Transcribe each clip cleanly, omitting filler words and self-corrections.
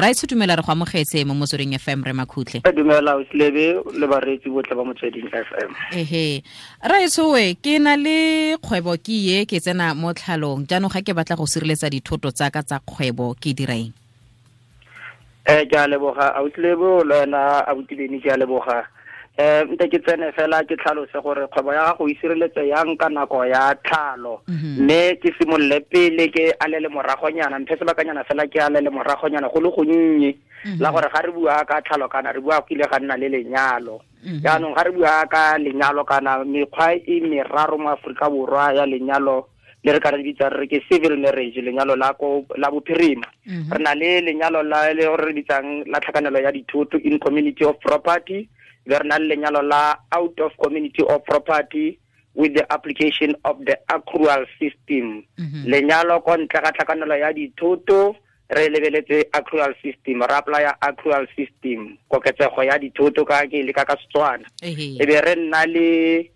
Raetsho, dumela, re go amogetse mo Motsweding FM, re Makhutle. Dumela Oslebe le bareetsi botlhe ba Motsweding FM. Ehe, raetsho, we ke na le kgwebo ke ye ke tsena mo tlhalong jaanong, ga ke batla go sireletsa dithoto tsa ka tsa kgwebo, ke dira eng? Ke a leboga, Auslebo, le wena abutileni, ke a leboga. Nte ke tsene fela ke tlhalose gore kgwebo ya gago e sireletse yang ka nako ya tlhalo, mme ke simolole pele ke alele moragonyana, mphe sebakanyana fela ke alele moragonyana go le gonnye la gore ga re bua ka tlhalo kana re bua go ile ga nna le lenyalo. Jaanong ga re bua ka lenyalo kana mekgwa e meraro mo Aforika Borwa ya lenyalo le re ka re bitsang re ke civil marriage, lenyalo la ko la bophirima, re na le lenyalo la le re bitsang la tlhakanelo ya dithoto, in community of property, be re na le lenyalo la out of community of property with the application of the accrual system. Lenyalo ko ntle ga tlhakanelo ya dithoto re lebeletse accrual system, re apply accrual system, koketsego ya dithoto ka ke le ka ka Setswana. E be re nna le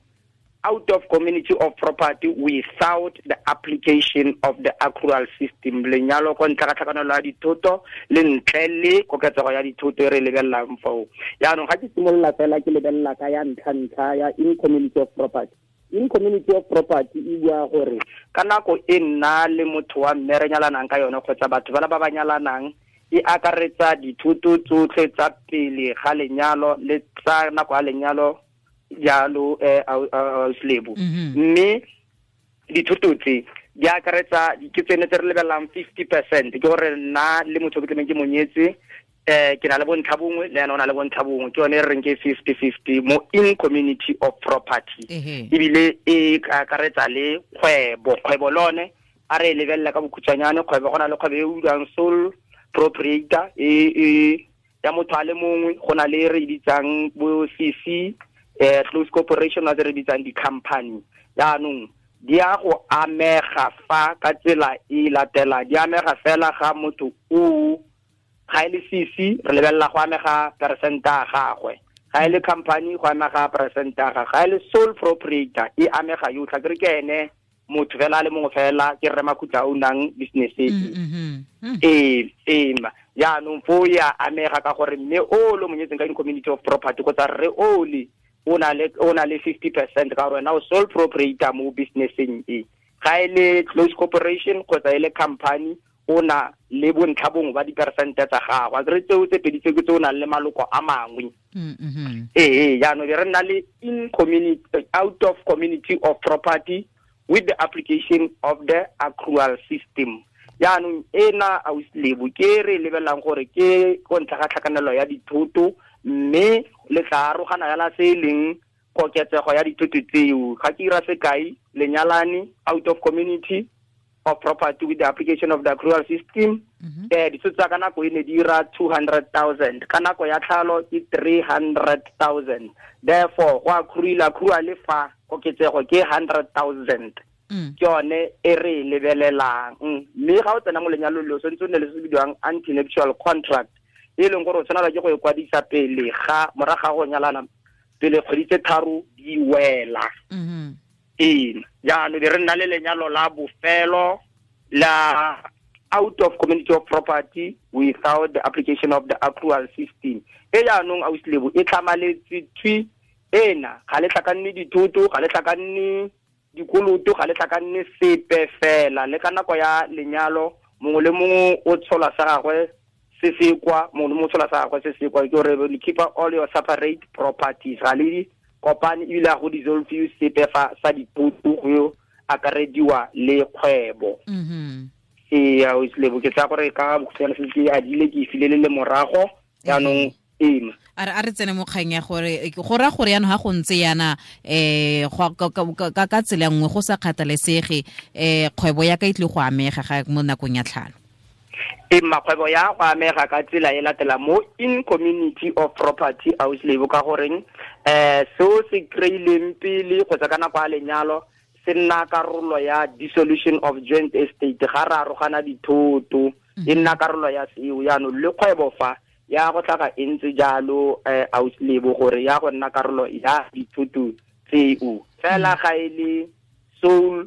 out of community of property without the application of the accrual system, lenyalo ko ntle ga tlhakanelo ya dithoto le ntle le koketsego ya dithoto e re lebelelang foo. Jaanong ga ke simolola fela ke lebelela ka ya ntlha-ntlha ya in community of property. In community of property e bua gore ka nako e nna le motho wa mme re nyalanang ka yone kgotsa batho bala ba ba nyalanang, e akaretsa dithoto tsotlhe tsa pele ga lenyalo le tsa nako ya lenyalo jalo, Auslebo. Mme dithoto tse di akaretsa ke tsene tse re lebelelang 50%, ke gore nna le motho ke tlameng ke monyetse, ke na le bontlha bongwe le ena o na le bontlha bongwe, ke yone e re reng ke 50-50 mo in community of property. Ebile e akaretsa le kgwebo. Kgwebo lone a re e lebelela ka bokhutshwanyane, kgwebo go na le kgwebo e utlwang sole proprietor e ya motho a le mongwe, go na le re e bitsang bo CC, close corporation, a re bitsang di-company. Jaanong di a go amega fa ka tsela e latelang, di amega fela ga motho o ga e le CC re lebelela go amega percent a gagwe, ga e le company go amega percent a gagwe, ga e le sole proprietor e amega yotlhe, ke re ke ene motho fela a le mongwe fela, ke rre Makhutla o nang business e. Ee, jaanong fo ya amega ka gore mme o le monyetseng ka in community of property kgotsa rre o le o na le 50% ka gore wena o sole proprietor mo businesseng e. Ga e le close corporation kgotsa e le company, o na le bontlha bongwe ba diperesente tsa gago, a kere tseo tse pedi tse ke tse o nang le maloko a mangwe. Ee, jaanong be re nna le in community out of community of property with the application of the accrual system. Jaanong ena, Auslebo, ke re lebelelang gore ke ko ntle ga tlhakanelo ya dithoto, mme le tla arogana yala se e leng koketsego ya dithoto tseo. Ga ke ira sekai, lenyalane out of community of property with the application of the accrual system, dithoto tsa ka nako e ne di ira 200,000, ka nako ya tlhalo ke 300,000, therefore go accruile accrual fa koketsego ke 100,000. Ke yone e re e lebelelang. Mme ga o tsena mo lenyalong le o tshwanetse o nne le se se bidiwang antenuptial contract, e leng gore o tshwanela ke go e kwadisa pele ga morago ga go nyalana, pele kgwedi tse 3 di wela. Ee, jaanong be re nna le lenyalo la bofelo la out of community of property without the application of the accrual system. E jaanong, Auslebo, e tlhamaletse thwi ena, ga le tlhakanne dithoto, ga le tlhakanne dikoloto, ga le tlhakanne sepe fela. Le ka nako ya lenyalo mongwe le mongwe o tshola sa gagwe se se kwa, mongwe le mongwe o tshola sa gagwe se se kwa, ke gore le keep all your separate properties, ga le di kopane, ebile ga go dissolve sepe fa sa dithoto go akarediwa le kgwebo. Ee, Auslebo, ke tsaya gore ka bokhutshwane se ke adile ke e file le le morago jaanong ema. A re tsene mo kgang ya gore go raya gore yaanong ga go ntse yana ka tsela nngwe, go sa kgathalesege, kgwebo ya ka e tlile go amega ga mo nakong ya tlhalo? E makgwebo ya go amega ka tsela e latela mo in community of property, Auslebo, ka goreng seo se kry-ileng pele kgotsa ka nako ya lenyalo se nna karolo ya dissolution of joint estate. Ga re arogana dithoto e nna karolo ya seo. Jaanong le kgwebo fa ya go tlhaga e ntse jalo, Auslebo, gore ya go nna karolo ya dithoto tseo fela. Ga e le sole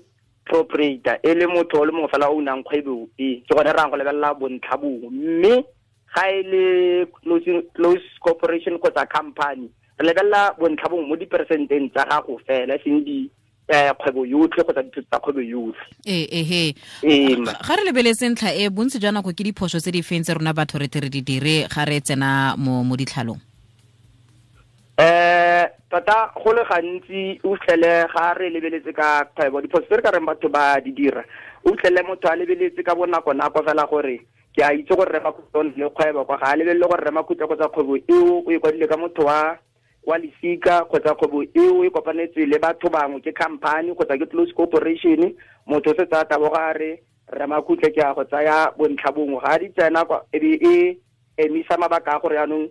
proprietor, e le motho o le mongwe fela o nang kgwebo e, ke gone re yang go lebelela bontlha bongwe, mme Ga e le close corporation kgotsa company, re lebelela bontlha bongwe mo diperesenteng tsa gago fela, e seng di kgwebo yotlhe kgotsa dithoto tsa kgwebo yotlhe. Ehe, ga re lebeletse ntlha e, bontsi jwa nako ke diphoso tse di feng tse rona batho re tle re di dire ga re tsena mo ditlhalong? Tota go le gantsi o fitlhele ga re lebeletse ka kgwebo, diphoso tse re ka reng batho ba di dira, o fitlhele motho a lebeletse ka bonako nako fela gore ke a itse gore Rre Makhutla o ne le kgwebo kwa, ga a lebelele gore Rre Makhutla kgotsa kgwebo eo o e kwadile ka motho wa lesika, kgotsa kgwebo eo e kopanetswe le batho bangwe, ke company kgotsa ke close corporation. Motho o setse a taboga a re Rre Makhutla ke a go tsaya bontlha bongwe, ga di tsena kwa e be e emisa mabaka a gore jaanong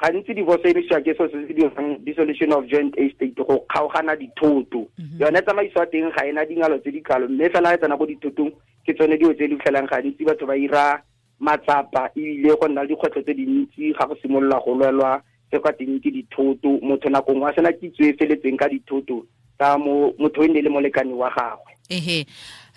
gantsi divorce e emisiwa ke selo se se dirang dissolution of joint estate, go kgaogana dithoto. Yone tsamaiso ya teng ga ena dingalo tse di kalo, mme fela e tsena ko dithotong ke tsone dilo tse di fitlhelang gantsi batho ba ira matsapa, ebile go nna le dikgwetlho tse dintsi ga go simolola go lwelwa tse kwa teng ke dithoto. Motho nako nngwe a sena kitso e feletseng ka dithoto tsa motho e ne le molekane wa gagwe. Ehe,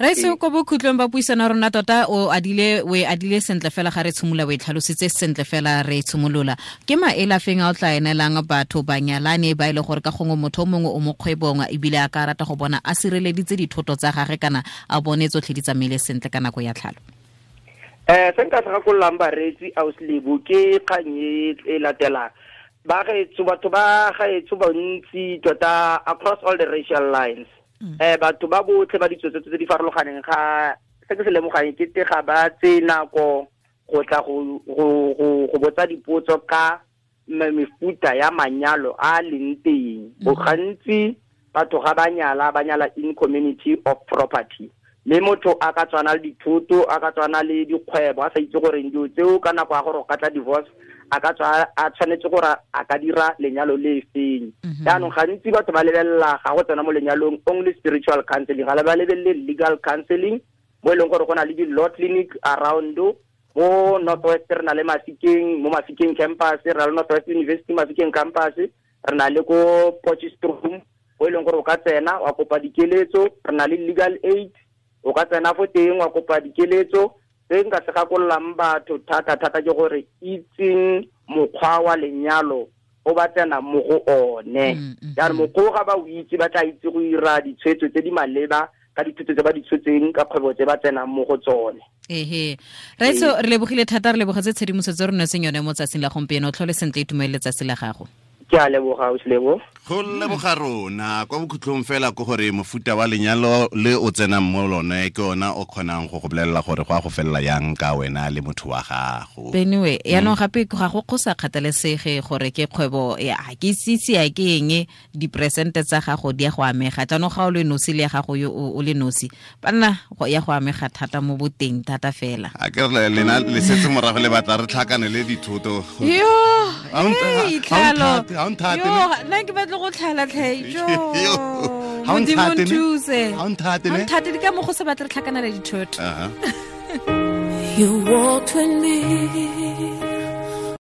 Raitse, ko bokhutlong ba puisano rona tota o e adile sentle fela ga re tshimolola, o e tlhalositse sentle fela re tshimolola. Ke maele a feng a o tla enelang batho banyalane ba e le gore ka gongwe motho o mongwe o mo kgwebong ebile a ka rata go bona a sireleditse dithoto tsa gagwe kana a bone tsotlhe di tsamaile sentle ka nako ya tlhalo? Se nka se gakololang bareetsi ausi Lebo ke kgang e latelang. Ba gaetsho, batho ba gaetsho bontsi tota across all the racial lines, batho ba botlhe ba ditso tse di farologaneng, ga se ke se lemogang ke te ga ba tse nako go tla go botsa dipotso ka mefuta ya manyalo a leng teng. Bo gantsi batho ga ba nyala, ba nyala in community of property, mme motho a ka tswana le dithoto, a ka tswana le dikgwebo, a sa itse gore dilo tseo ka nako ya gore o ka tla divorce a ka tswa a tshwanetse gore a ka dira lenyalo le feng. Jaanong gantsi batho ba lebelela ga go tsena mo lenyalong only spiritual counseling, ga ba lebelele legal counseling, mo e leng gore go na le di-law clinic around mo North West. Re na le Mafikeng, mo Mafikeng campus, re na le North West University Mafikeng campus, re na le ko Potchefstroom, mo e leng gore o ka tsena wa kopa dikeletso. Re na le legal aid, o ka tsena fo teng wa kopa dikeletso. Se nka se gakololang batho thata thata ke gore itseng mokgwa wa lenyalo o ba tsena mo go one. Jaanong mokgwa ga ba o itse, ba tla itse go ira ditshwetso tse di maleba ka dithuto tse ba di tshotseng ka kgwebo tse ba tsenang mo go tsone. Ehe, Raitso, re lebogile thata, re lebogetse tshedimosetso re netseng yone mo tsatsing la gompieno. Tlhole sentle, itumelele letsatsi la gago. Ke a leboga, ausi Lebo. Go leboga rona. Kwa bokhutlong fela ke gore mofuta wa lenyalo le o tsenang mo lone ke ona o kgonang go go bolelela gore go a go felela yang ka wena le motho wa gago. Anyway, yaanong gape ga go sa kgathalesege gore ke kgwebo ya ke sitse ya ke eng, diperesente tsa gago di ya go amega. Jaanong ga o le nosi le ya gago yo o le nosi, banna ya go amega thata mo boteng thata fela. A ke re lena le setse morago le batla re tlhakane le dithoto. Yo, tlhalo. Ha o nthate. Yo, nna ke batla go tlhala tlhe. Jo. Ha o Modimo nthate ne? nthuse. Ha o nthate Ha o ne? nthate di ka mo go se batle re tlhakanela dithoto. Aha. You walked with me.